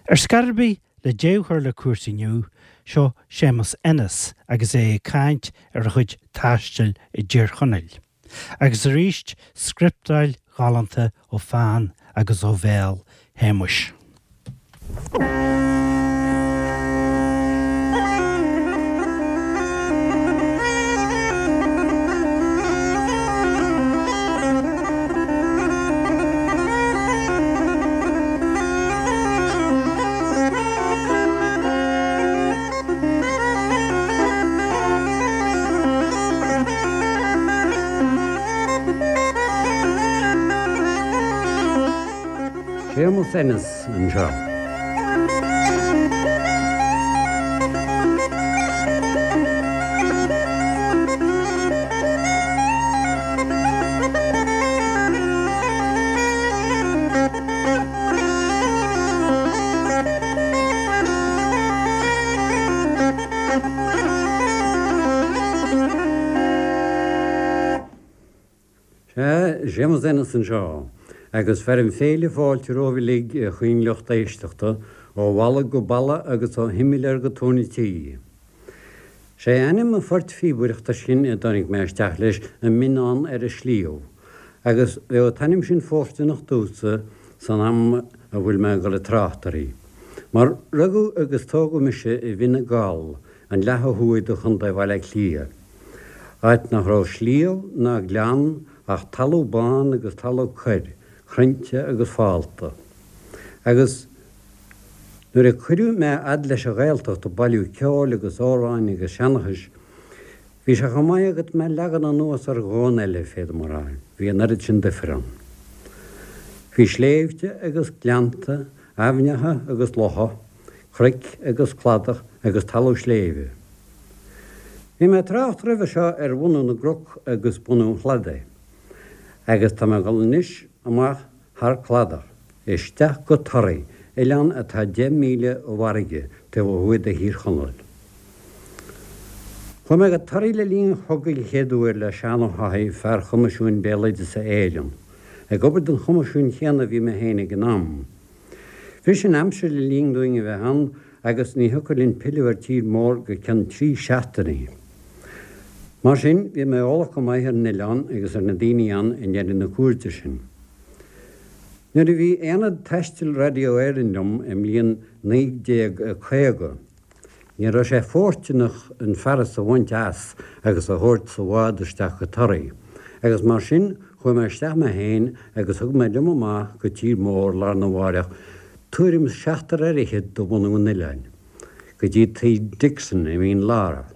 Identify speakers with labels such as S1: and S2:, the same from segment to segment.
S1: Ar scor ar bith, le deireadh a chur le cúrsaí inniu, seo Séamus Ennis agus é ag caint ar a chuid taistil i dTír Chonaill. Agus arís scrioptáil ghalánta ó pheann agus ó bhéal Shéamuis.
S2: Séamus Ennis anseo. Sea, Séamus Ennis anseo, agus fearaim féile fáilte romhaibh uilig, a chaoinlucht éisteachta, ó bhalla go balla agus ó shimléar go tóin an tí. Sé ainm an phoirt phíobaireachta sin a dtáinig mé isteach leis An Mionnán ar an Sliabh, agus bheadh an t-ainm sin fóirsteanach domhsa san am a bhfuil mé ag dul ag trácht uirthi. Mar rugadh agus tógadh mise i bhFine Gall, an leath ó thuaidh de Chontae Bhaile Átha Cliath, áit nach raibh sliabh ná gleann ach talamh bán agus talamh corr, crainnte agus fálta. Agus. Nuair a cuireadh mé fhad leis an Ghaeltacht ag bailiú ceoil agus amhráin agus seanchais, bhí sé chomh maith agat mé a leagan anuas ar dhomhan eile, féadaim a rá, bhí an oiread sin duifir ann. Bhí sléibhte agus gleannta, aibhneacha agus locha, cnoic agus cladach agus talamh sléibhe. Bhí mé ag trácht roimhe seo ar bhunú na gcnoc agus bunú an chladaigh, agus tá mé ag dul anois amach thar cladach, isteach go Toraigh, oileán atá 10 míle ó bhfarraige, taobh ó thuaidh de Thír Chonaill. Chuaigh mé go Toraigh le linn an chogaidh an chéad uair le Seán Ó hÁthaigh, fear Choimisiúin Béaloideasa Éireann. Ag obair don Choimisiún chéanna a bhí mé féin ag an am. Bhris an aimsir le linn dúinn a bheith ann agus ní thiocfadh linn pilleadh ar tír mór go ceann 3 seachtainí. Mar sin, bhí mé eolach go maith ar an oileán agus ar na daoine ann i ndeireadh na cuairte sin. Nuair a bhí Aonad Taistil Radio Éireann liom i mbliain 1950, ní raibh sé fóirsteanach an fearas a bhaint as agus a thabhairt sa bhád isteach go Toraigh, agus mar sin chuaigh mé isteach mé féin agus thug mé liom amach go tír mór lá arna mháireach tuairim is seachtar fhear fhichead de bhunadh an oileáin, go dtí tigh Dixon i Mín Lártha.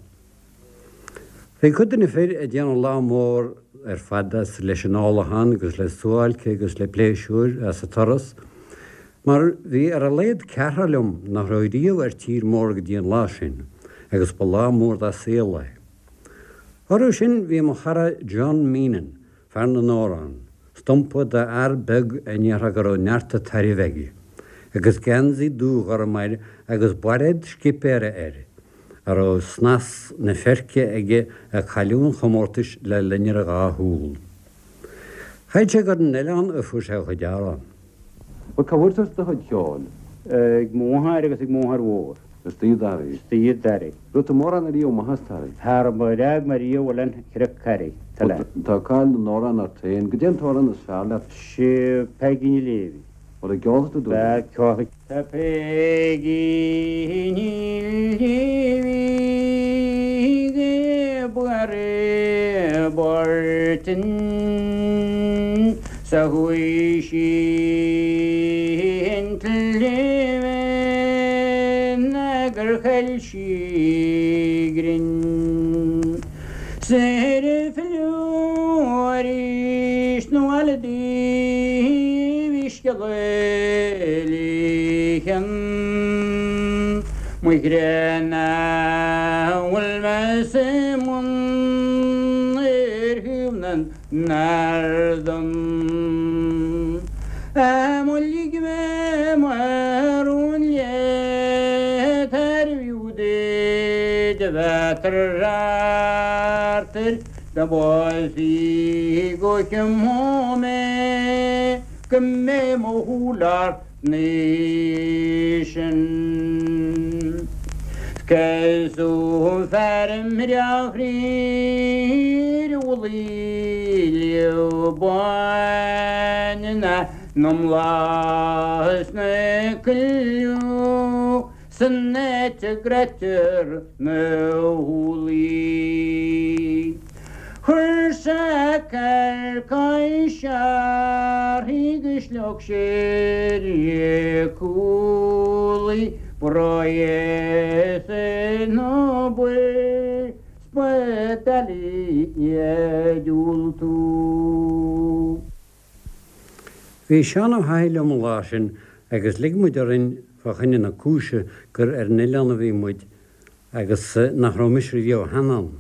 S2: Bhí cuid de na fir ag déanamh lá mór ar fad as leis an ólachán agus le suáilce agus le pléisiúir as an turas, mar bhí ar a laghad ceathrar liom nach raibh riamh ar tír mór go dtí an lá sin, agus ba lá mór dá saol é. Orthu sin bhí mo chara John Meenan, fear na n-amhrán, stumpa d'fhear beag a ndéarfá go raibh neart an tairbh aige, agus geansaí dúghorm air agus bairéad scipéara air, a raibh snas na feirce aige a cailleadh an chomórtais le loinnir a dhá shúl. Chreid sé gur ar an oileán a fuair sé a chuid amhrán.
S3: Bhuel, cá bhfuair tusa do chuid ceoil?
S4: Ag mo mháthair agus ag mo mháthair mhór.
S3: Istigh i dToraigh?
S4: Istigh i dToraigh.
S3: Raibh tú mórán ariamh amach as Toraigh?
S4: Cha raibh ar fhág mé riamh Oileán Chnoc Carraigh,
S3: Bhuel, tá cáil na n-amhrán ort féin. Goidé an t-amhrán is fearr leat?
S4: Sé Peigí Ní Léimhí.
S3: Bhuel, an gceolfaidh tú dúinn é?
S4: Ceolfaidh. Tá Peigí Ní Léimhí ag obair i bPortinn 's a chuaigh sí an tsléibhe gur chaill sí a grinn. 'S ar filleadh arís 'na bhaile di bhí scéala léithe. Mo chreach nach bhfuil mé sa mbun ar thaobh na n-ardán. Á má lig mé mo rún leat arbh fhiú duit a bheith thart air dá bpósfaí go mé go mbeidh mo shúil ort anois. Sin. Casadh fear breá fríd bhliain báin na mbláth sna coilleadh san áit a gcreidtear na húllaí. Chuir sé carcais uirthi go slog sé cúlaí breis na spadailí diúltú.
S2: Bhí Seán Ó hAthaigh liom an lá sin agus lig muid orainn fá choinne na cúise gur ar an oileán a bhí muid agus nach raibh mise riamh cheana ann.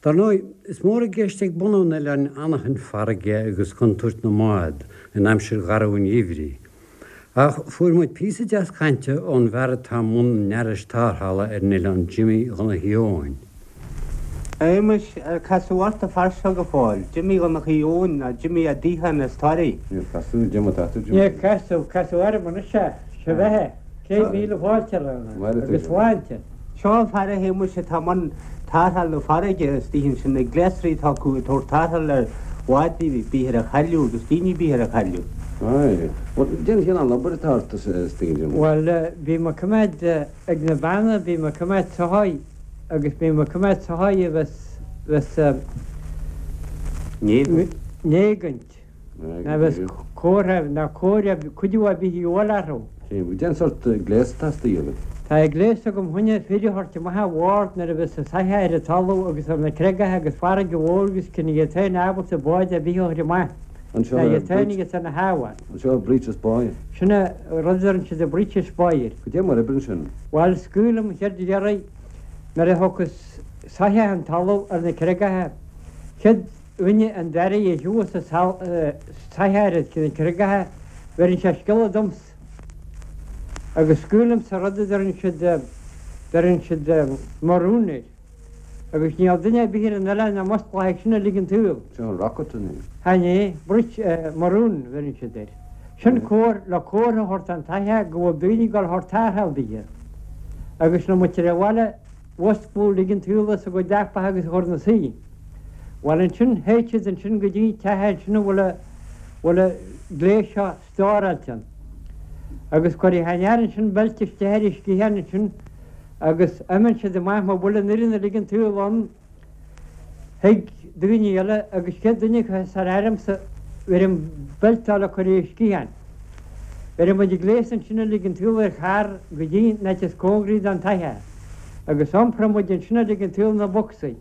S2: Dar ndóigh, is mór i gceist ag bunadh an oileáin anachain farraige agus contúirt na mbád in aimsir gharbh an gheimhridh. Ach fuair muid píosa deas cainte ón bhfear atá i mbun an fhearais tarrthála ar an oileán, Jimmy Dhonnchaidh Eoin.
S5: A Shéamais, ar casadh ort an fear seo go fóill, Jimmy Dhonnchaidh Eoin nó Jimmy Ó Dúcháin as Toraigh?
S3: Níor casadh, Jim atá tú, Jimmy.
S4: Níor casadh, casadh orm anois é, sé bheatha, 100,000 fáilte roimhe agus sláinte.
S5: Seo an fear a Shéamais atá i mbun tarrtháil na farraige istigh ansin, na gléasraí atá acu ag tabhairt tarrtháil ar bháid ar bith ar a chailleadh agus daoine ar bith ar a
S3: chailleadh. Aye. Bhuel, cén cineál obair atá ort istigh ansin?
S4: Bhuel, bím ag coimeád ag na beanna, bím ag coimeád soithí agus bím ag coimeád soithí a bheas, bheas, n-éagaint. Ná bheas comhartha ná cóir cuidiú ar bith a dhíobháil orthu.
S3: Cén sórt gléas atá istigh agat?
S4: Tá gléas agam chun fir a thabhairt amach ar bhord nuair a bheas an soitheach ar an talamh agus ar na creagacha agus farraige mhór agus cinn iad féin ábalta bád ar bith a chur amach.
S3: Anseo
S4: Ná iad féin agus ar na hábhair.
S3: Anseo breeches buoy.
S4: Sin é rud a deireann siad an breeches buoy air.
S3: Goidé mar oibreann sin?
S4: Bhuel, scaoilim chéad iarraidh nuair a thiocfas soitheach an talamh ar na creagacha. Chéad dhuine an dara a thiubhas an soitheach ar na creagacha, bheireann sé scéala domsa agus scaoilimse rud a deireann siad, deireann siad maroon air agus níl duine ar bith ar an oileán nach musclódh sin uilig an tsaol.
S3: Sin an rocket an ea?
S4: Chan é, breech, maroon a bheireann siad air. Sin comhar, le comhartha a thabhairt don tsoitheach go bhfuil daoine ag dul a thabhairt tarrtháil daoithe. Agus nuair muid ar an bhaile, mhusclódh uilig an tsaol as a gcuid leapacha agus a chur 'na suí. Bhuel ansin, théid siad ansin go dtí an teach ansin a bhfuil a, bhfuil a gléas seo stóráilte ann. Agus cuirfidh an fhear ansin beilt isteach ar a sciathán ansin agus imíonn siad amach má bhfuil an fhoireann uilig an tsaol ann, Thig daoine eile agus chéad duine acu thar airmsa bheirim beilteáil a chur ar a sciathán. Bheireadh muid gléas ansin uilig an tsaol ar charr go dtí an áit is cóngaraí don tsoitheach agus iompróidh muid ansin uilig an tsaol na bocsaí,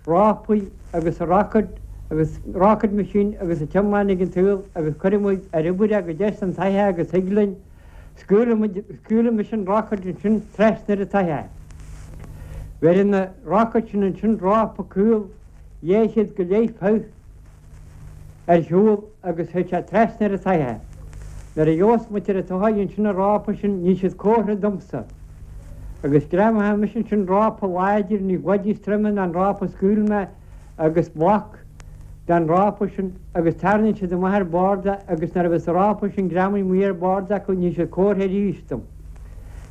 S4: rópaí agus an rocket agus rocket machine agus an t-iomlán uilig an tsaol agus cuirfidh muid ar obair é go deas an tsoitheach agus thig linn Scaoilfidh mise an rocket ansin trasna ar an tsoitheach. Bheireann an rocket sin ansin rópa caol 200 go leith punt ar shiúl agus théid sé trasna ar an tsoitheach. Nuair a gheobhas muid ar an tsoitheach ansin an rópa sin ní siad comhartha domsa. Agus greamóidh mise ansin rópa láidir ní bhfad níos troime ná an rópa a scaoil mé agus bloc den rópa sin agus tarraingíonn siad amach ar bord é agus nuair a bheas an rópa sin greamaithe amuigh ar bord acu ní siad comhartha arís dom.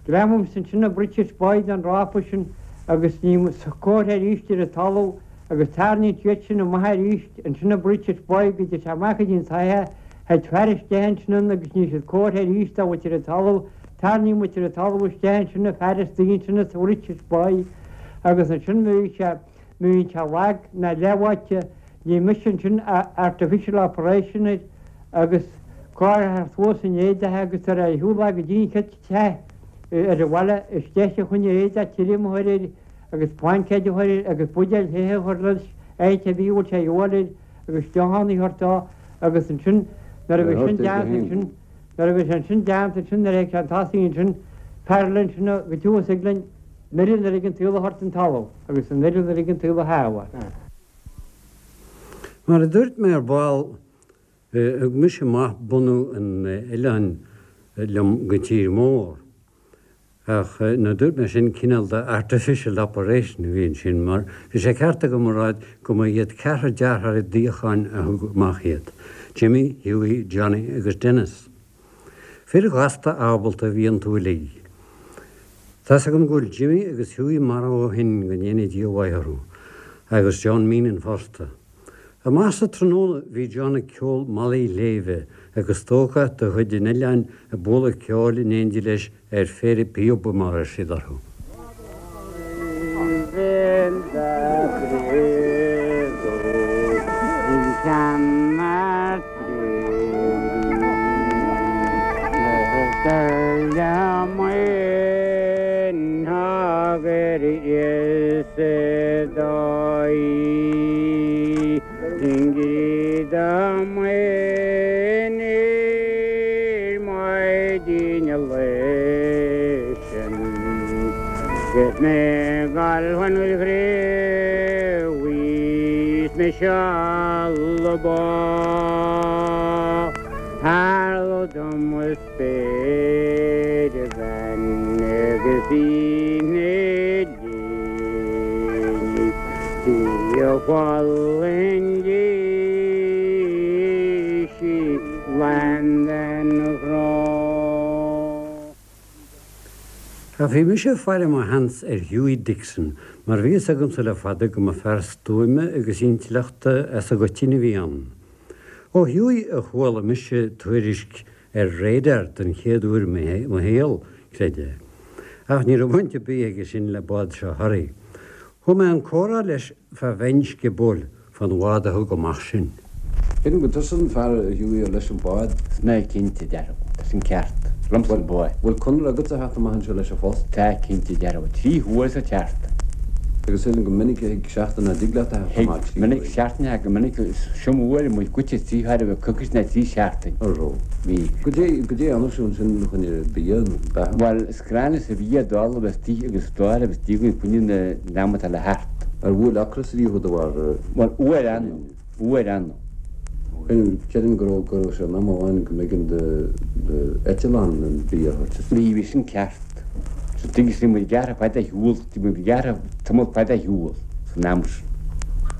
S4: Greamaímse ansin an breeches buoy den rópa sin agus ní comhartha arís ar an talamh agus tarraingíonn siad sin amach arís ansin an breeches buoy go dté sé amach go dtí an tsoitheach, théid fear isteach ansin ann agus ní siad comhartha arís dá bhfuil ar an talamh, tarraingíonn muid ar an talamh isteach ansin an fear istigh ansin sa bhreeches buoy agus ansin bhí sé Má bhíonn sé lag ná leathbháite, ní mise ansin artificial operation air agus cóir suas in éadach agus tar ar shiúl go dtí an chéad teach ar an bhaile isteach a choinne éadach tirim a chur air agus blaincéid a chur air agus buidéal the a chur leis áit ar bith a bhfuil sé a dhíobháil air agus deochan a thabhairt dó agus ansin nuair a bhí sin déanta ansin nuair a bhí sé sin déanta ansin nuair a théid sé an tosaigh ansin fear eile ansin go dtiús ag linn An fhoireann uilig an tsaol a thabhairt den talamh agus an fhoireann uilig an tsaol a shábháil.
S2: Mar a dúirt mé ar ball, thug mise amach bunadh an oileáin liom go tír mór. Ach nuair a dúirt mé sin, cineál de artificial operation a bhí ansin, mar bhí sé ceart agam a rá go mba iad ceathrar deartháirí Dúcháin a thug amach iad, Jimmy, Hughie, Johnny agus Denis. Fir ghasta ábalta a bhí iontu uilig. Tá's agam go bhfuil Jimmy agus Hughie marbh ó shin, go ndéana Dia a mhaith orthu, agus John Meenan fosta. Amach sa tráthnóna bhí John ag ceol Malaidh Shléibhe agus stócach de chuid an oileáin ag bualadh ceoil in éindí leis ar phéire píoba mar a raibh siad orthu. Ach bhí mise ag faire mo sheans ar Hughie Dixon mar bhí fhios agamsa le fada go mba fear stuaime agus intleachta as an gcoitinne a bhí ann. Ó Hughie a chuala mise tuairisc ar radar den chéad uair i mo shaol, creid é. Ach ní raibh baint ar bith aige sin le bád seo Thoraí. Thóg mé an comhrá leis fá bheinn sciobóil fán bhád a thug amach sinn.
S3: Creidim gur tusa an fear a Hughie ar leis an bád.
S5: Is mé cinnte, dearfa. Tá sin ceart. Liomsa an bád.
S3: Bhfuil conradh agatsa a theacht amach anseo leis an phost?
S5: Tá cinnte, dearfa. 3 huaire sa tseachtain.
S3: Agus sílim go minic a thig seachtain nach dtig leat a theacht
S5: amach 3 huaire. Thig minic seachtain a go minic is iomaí uair muid goite 3 huaire bheith coicís ná 3 seachtain.
S3: An raibh?
S5: Bhí.
S3: Goidé, goidé a dhéanadh sibh ansin chun bia nó beatha?
S5: Bhuel, is gránna is a bhí ag dul agus tí agus dáil agus díogaí coinne na n-am atá le theacht.
S3: Ar bhuail ocras riamh thú de bharr?
S5: Bhuel, uair annamh, uair annamh.
S3: Creidim go raibh, go raibh sé in am amháin go mb'éigean do, do eitleán an bia a thabhairt isteach.
S5: Bhí, bhí sin ceart. So tuigeann bhí muid gearrtha fada ar shiúl, bhí muid gearrtha tamall fada ar shiúl san am sin.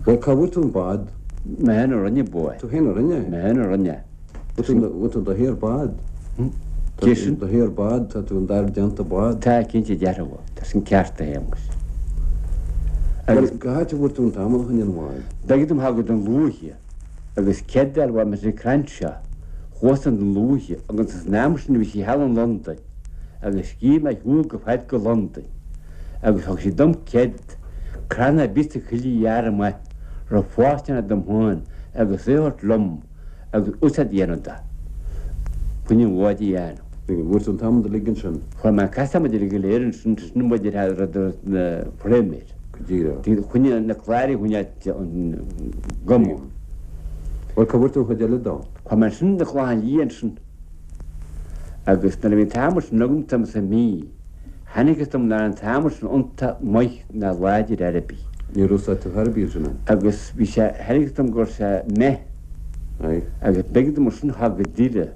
S3: Bhuel, cá bhfuair tú an bád?
S5: Mé féin a rinne bád.
S3: Tú féin a rinne
S5: é? Mé féin a rinne é.
S3: Bhfuil tú do shaor bád?
S5: Cé sin?
S3: Do shaor bád, tá tú an d'fhear déanta bád.
S5: Tá, cinnte dearfa. Tá sin ceart, a Shéamais.
S3: Agus cá háit a bhfuair tú an t-adhmad chun an bháid?
S5: B'éigean dom a ghabháil go Dún Lúiche agus cead a fháil uaidh Mr. Crenshaw. Chuas go Dún Lúiche agus san am sin bhí sí thall in Londain agus scríobh mé ar shiúl go fad go Londain agus thug sí dom cead crann ar bith sa choill a ghearradh amach raibh fóirsteanach dom féin agus é a thabhairt liom agus úsáid a dhéanamh de. Chun an bhád a dhéanamh.
S3: Bhfuair tú an t-adhmad uilig ansin?
S5: Fuair mé an adhmad uilig go léir ansin, sin muid ar rud na frameir.
S3: Go díreach.
S5: Chun na cláir a choinneáil an gcuma.
S3: Bhuel, cá bhfuair tú an chuid eile dó?
S5: Fuair mé ansin na Clochán Liath ansin. Agus nuair a bhí an t-adhmad sin agam tá sa mí, chonacthas dom nach raibh an t-adhmad sin iontach maith ná láidir ar bith.
S3: Níor úsáid tú ar bith ansin é?
S5: Agus bhí sé, chonacthas dom go raibh sé méith.
S3: Aye.
S5: Agus b'éigean dom ansin a ghabháil go Doire,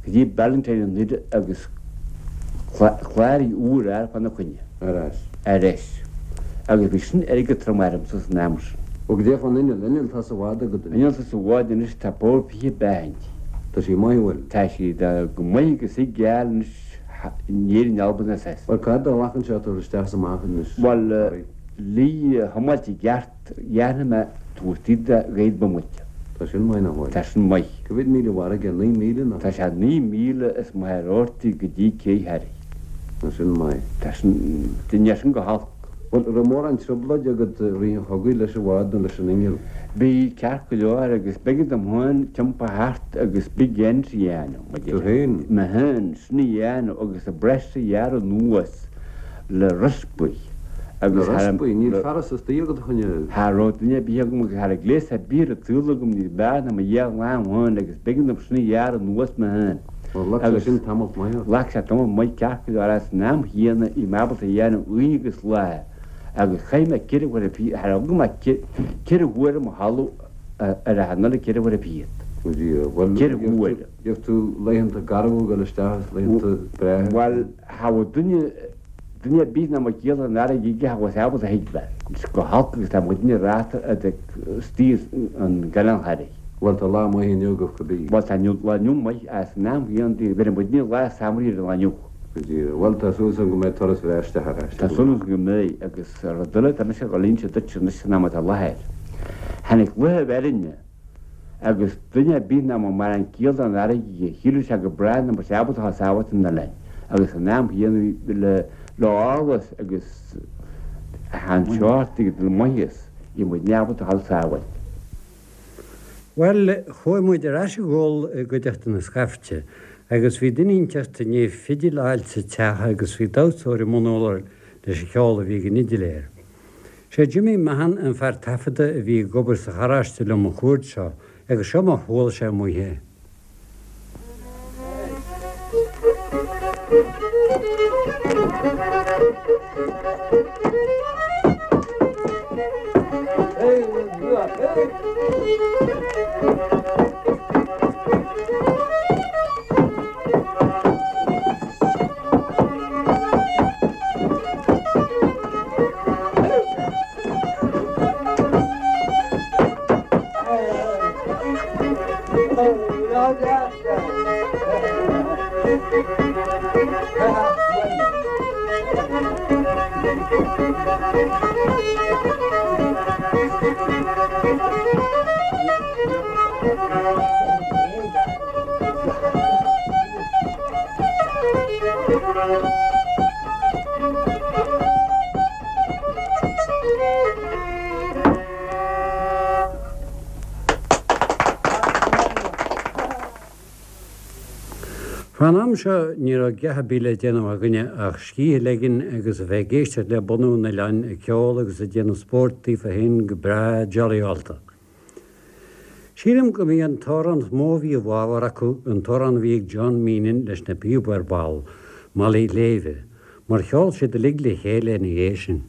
S5: go dtí Ballantyne i nDoire agus cláraí úr a fháil fána choinne.
S3: Ar ais.
S5: Ar ais. Agus bhí sin airgead trom ormsa san am sin.
S3: Ó goidé fán inneall, inneall tá sa bhád agat
S5: anois. Inneall tá sa bhád anois, tá bord 20 beatha inti.
S3: Tá sí maith, an bhfuil?
S5: Tá sí go maith agus í geal anois in Éirinn, Albain is as.
S3: Bhuel, cá fhad a ghlacann sé tabhairt isteach is amach anois?
S5: Bhuel, le thiomáilt i gceart, dhéanfaidh mé tabhairt iad de ghaoth bomaite.
S3: Tá sin maith, nach bhfuil?
S5: Tá sin maith.
S3: Cá mhéad míle i bhfarraige? 9,000 nó?
S5: Tá sé 9,000 is maith ar ortaí go dtí Cé Thoraí.
S3: Tá sin maith.
S5: Tá sin, níl sin go holc.
S3: Bhuel, raibh mórán trioblóide agat i rith an chogaidh leis an bhád nó leis an inneall?
S5: Bhí, ceart go leor, agus b'éigean dom féin tiompar thart agus big ends a dhéanamh, mar
S3: Tú féin?
S5: Mé féin, sin a dhéanamh agus an breis a ghearradh anuas le rispaí
S3: agus Le rispaí? Níl fearas istigh agat a choinne.
S5: Cha raibh duine ar bith agam agus cha raibh gléas ar bith ar an tsaol agam níos fearr ná mo dhá lámh féin agus b'éigean dom sin a ghearradh anuas mé féin.
S3: Bhuel, ghlac sé sin tamalt maith
S5: ort. Ghlac sé tamall maith ceart go leor san am chéanna bhí mé ábalta a dhéanamh oíche agus lá agus chaith mé ceithre huaire fichead, cha raibh agam ach ceithre huaire mo chodladh ar a anall ceithre huaire fichead.
S3: Ó Dhia, bhuel,
S5: Ceithre huaire.
S3: gheobhaidh tú laethanta garbha ag dul isteach is laethanta breátha.
S5: Bhuel, cha bhfuil duine, duine ar bith ná mo chiall an fharraige aige cha bhfuil sé ábalta a thuigbheáil. Go holc agus tá muidne ráta istigh an gCanáil Thoraí.
S3: Bhuel, tá lá maith inniu agaibh
S5: cibé. Bhuel, tá lá inniu maith, as an am chéanna, bheireann muidne lá samhraidh ar an lá inniu.
S3: Go díreach. Bhuel, tá súil agam go mbeidh turas bhreá isteach ar ais.
S5: Tá súil agam go mbeidh, agus rud eile, tá mise ag dul a inse duit anois san am atá i láthair. Tháinig luaithe bhfeirne agus duine ar bith nach mbeadh mórán ciall don fharraige aige, shíleadh sé go bráth nach mbeadh sé ábalta a sábháilt an oileáin agus san am chéanna bhí le le eolas agus an seort agus le maitheas, bhí muidne ábalta a dhul sábháilt.
S2: Bhuel, chuaigh muid ar ais ag ól i gcuideachta na scaifte, agus bhí duine inteacht i ndiaidh fidil a fháilt sa teach agus bhí damhsóir i mbun urláir leis an cheol a bhí ag an fhidiléir. Sé Jimmy Mahon an fear taifeadta a bhí ag obair sa charráiste liom an chuaird seo agus seo mar chuala sé amuigh é. Fán am seo ní raibh a dhath ar bith le déanamh againne ach scíth a ligean agus a bheith ag éisteacht le bunadh an oileáin ag ceol agus ag déanamh spóirt daofa féin go breá jollyálta. Sílim go mb'í an t-amhrán is mó a bhí i bhfabhar acu an t-amhrán a bhí ag John Meenan leis na píoba ar ball, Malaí Léibhe, mar cheol siad uilig le chéile ina dhiaidh sin.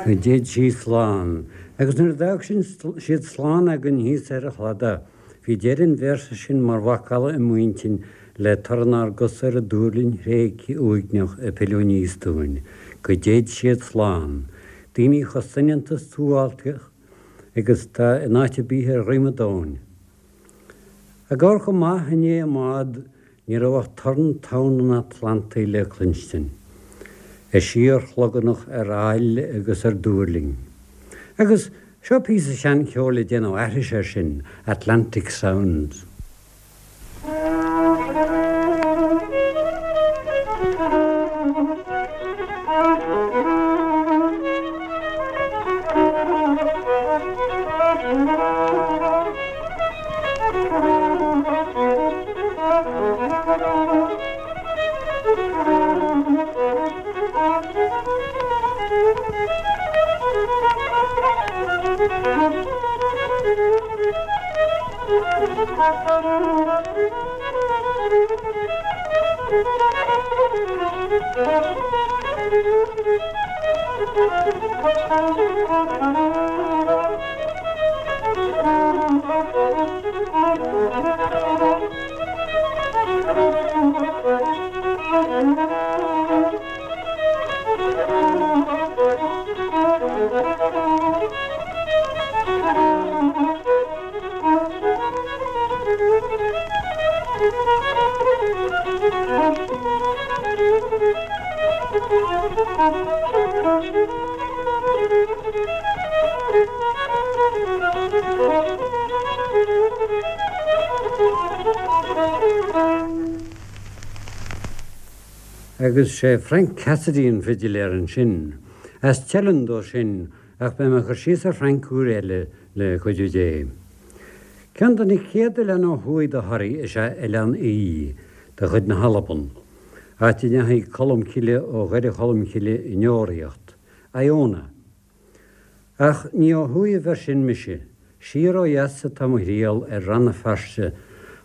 S2: Go dtéid sí slán. Agus nuair a d'fhág siad slán againn thíos ar an chladach, bhí deireadh an véarsa sin mar mhacalla i m'intinn le torann ár gcos ar an duirlinn thréigthe uaigneach ag pilleadh aníos dúinn. Go dtéid siad slán. Daoine chomh soineanta suáilceach agus atá in áit ar bith ar dhroim an domhain. Ag amharc amach i ndiaidh an mbád ní raibh ach torann tonn an Atlantaigh le cluinstin, ag síorshlogannach ar aill agus ar dúirling. Agus. Seo píosa seancheoil ag déanamh aithris air sin, Atlantic Sounds. Agus sé Frank Cassidy an fidiléir ansin. As Teileann dó sin ach beidh mé ag cur síos ar Frank uair eile le cuidiú Dé. Ceann de na chéad oileáin ó thuaidh de Thoraigh is ea Oileán Í, de chuid na hAlban, áit a ndeachaigh Colm Cille ó Dhoire Cholm Cille i ndeoraíocht, Iona. Ach ní ó thuaidh a bheir sin mise. Siar ó dheas atá mo thriall ar Rann na Feirste,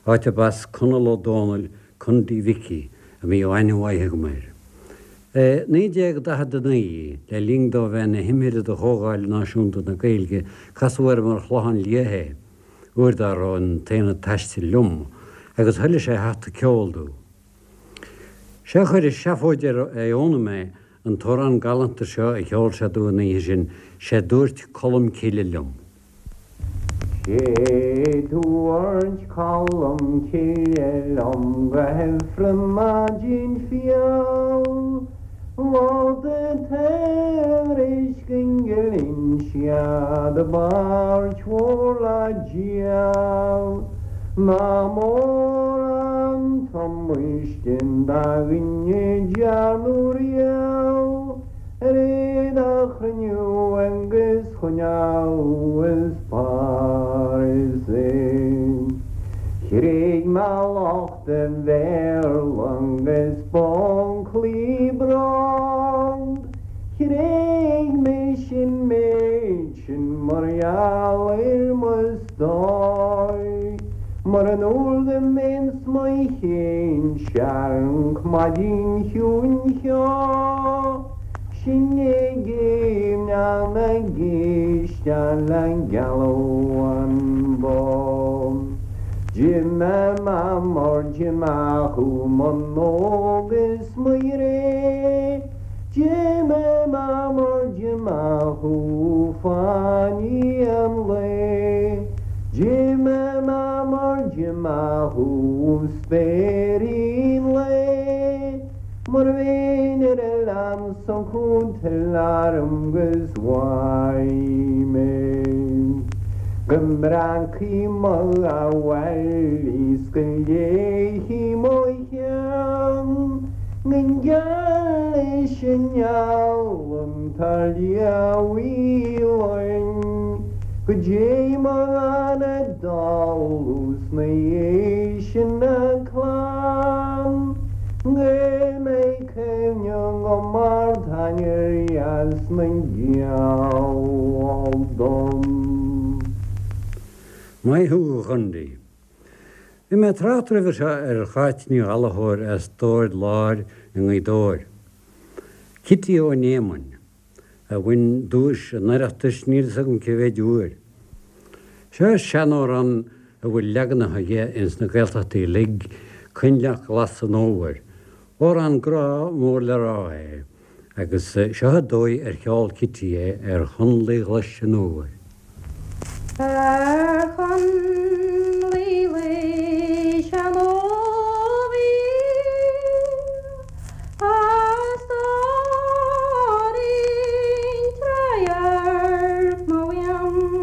S2: áit ab as Conall Ó Dónaill, Condaí Mhicí, a mbíodh aithne mhaith agam air. I 1949, le linn dó bheith ina thimire do Chomhdháil Náisiúnta na Gaeilge, casadh orm ar Chlochán Liath é, uair dá raibh an tAonad Taistil liom, agus thoiligh sé theacht ag ceol domh. Sé a chuir i seafóid ar Iona mé, an t-amhrán galánta seo a cheol sé domh an oíche sin, 'Sé dúirt Colm Cille liom.
S6: Sé dúirt Colm Cille liom go hIfreann maidin fial, Vóta tairiscint go Inse do bpáirt mhór le díol. Nach mór an t-amaistin do dhuine dearnadh riamh ar iad a chruinniú agus choinneáil is Páras é. Chreid mé lucht an Bhéarla agus b'uncailí bróg. Chreid mise an méid sin mar gheall ar mo stór. Mura ndúr go mbínn 's mo chéin searc maidin chiúin cheo, sinn ag géimneach na gcíste le gealadh an bó. D'imigh mar d'imigh thú mo nóg is mo ghré, D'imigh mar d'imigh thú fáinní an lae, D'imigh mar d'imigh thú spéirín lae, Mura mbeinn ar oileán s'acu tuill orm 'gus uaidh mé. Go mbreacfaí mo bhaile 's go léifí mo cheann, Go ngeal leis an ngeal an t-liath linn, Go dté mo anam dall 's na dhiaidh sin a clann, Go mbeidh cuimhne agam ar t'ainnir dheas na ngeal dom.
S2: Maith thú, a Chondaí. Bhí mé ag trácht roimhe seo ar Cháit Ní Ghallchóir as Dord Láir i nGaoth Dobhair. Cití Ó Néamáin, a bhain duais an Oireachtais níl fhios agam cé mhéid uair. Seo seanamhrán a bhfuil leaganacha dhe ins na Gaeltachtaí uilig, Coinleach Glas an Fhómhair. Amhrán grá mór le rá é. Agus seo an dóigh ar cheol Cití é ar Chonnlaí Ghlais an Fhómhair.
S7: Ar chonnlaí ghlais an fhómhair, a stóirín, radharc mo mhian.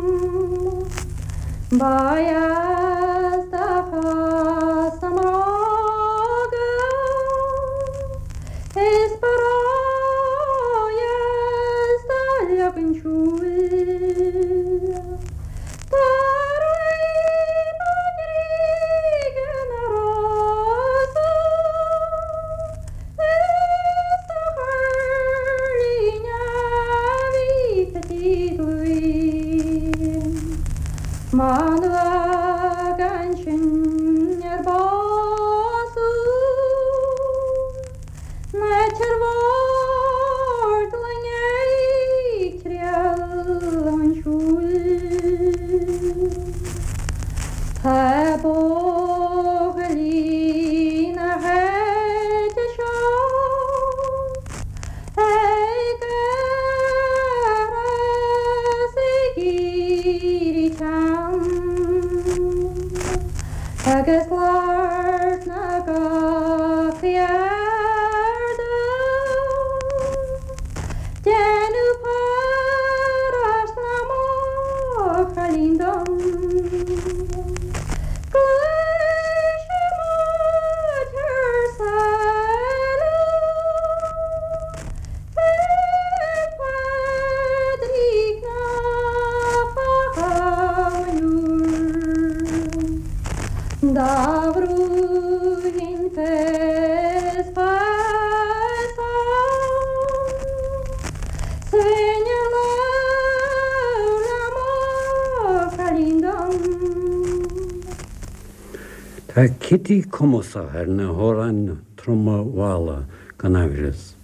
S2: Tá Kitty cumasach ar na hamhráin troma mhalla, gan aimhreas.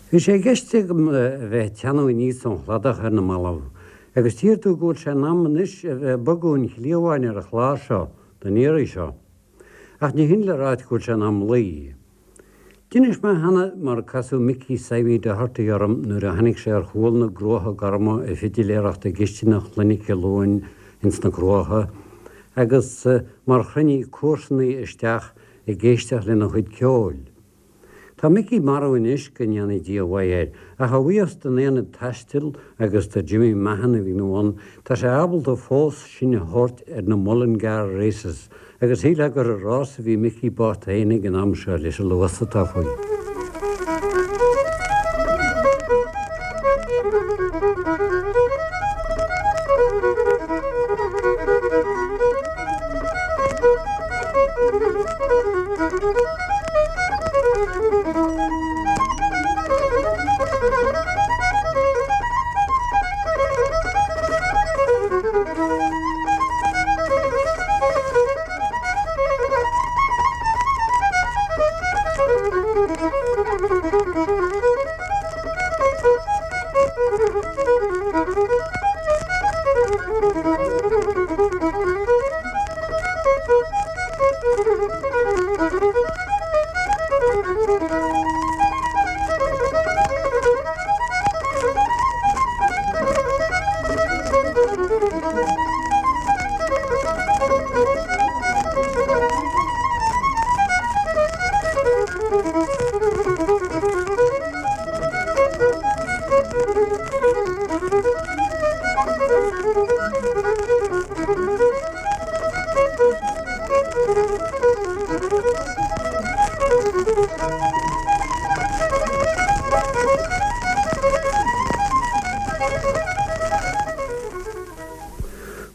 S2: Bhí sé i gceist agam a bheith ag teannadh aníos ón chladach ar na mallaibh, agus tchífidh tú go bhfuil sé in am anois a bheith ag bogadh an chliabháin ar an chlár seo don iarraidh seo. Ach ní hin le ráit go bhfuil sé in am luí. D'inis mé cheana mar a casadh Micí Seimí Doherty orm nuair a tháinig sé ar chúl na gCruacha Gorma ag fidiléireacht i gcistineach Chlainne Ciolúin ins na Cruacha agus mar chruinnigh comharsanaí isteach ag éisteacht lena chuid ceoil. Tá Micí marbh anois, go ndéana Dia a mhaith air, ach a bhuíochas don Aonad Taistil agus do Jimmy Mahon a bhí ina bhun, tá sé ábalta fós sinn a thabhairt ar na Mullingar Races agus shílfeá gur ag rás a bhí Micí bocht féin ag an am seo leis an luas atá faoi.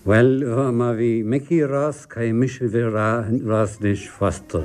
S2: Bhuel, má bhí Micí ag rás, caithfidh mise a bheith ag rás anois fosta.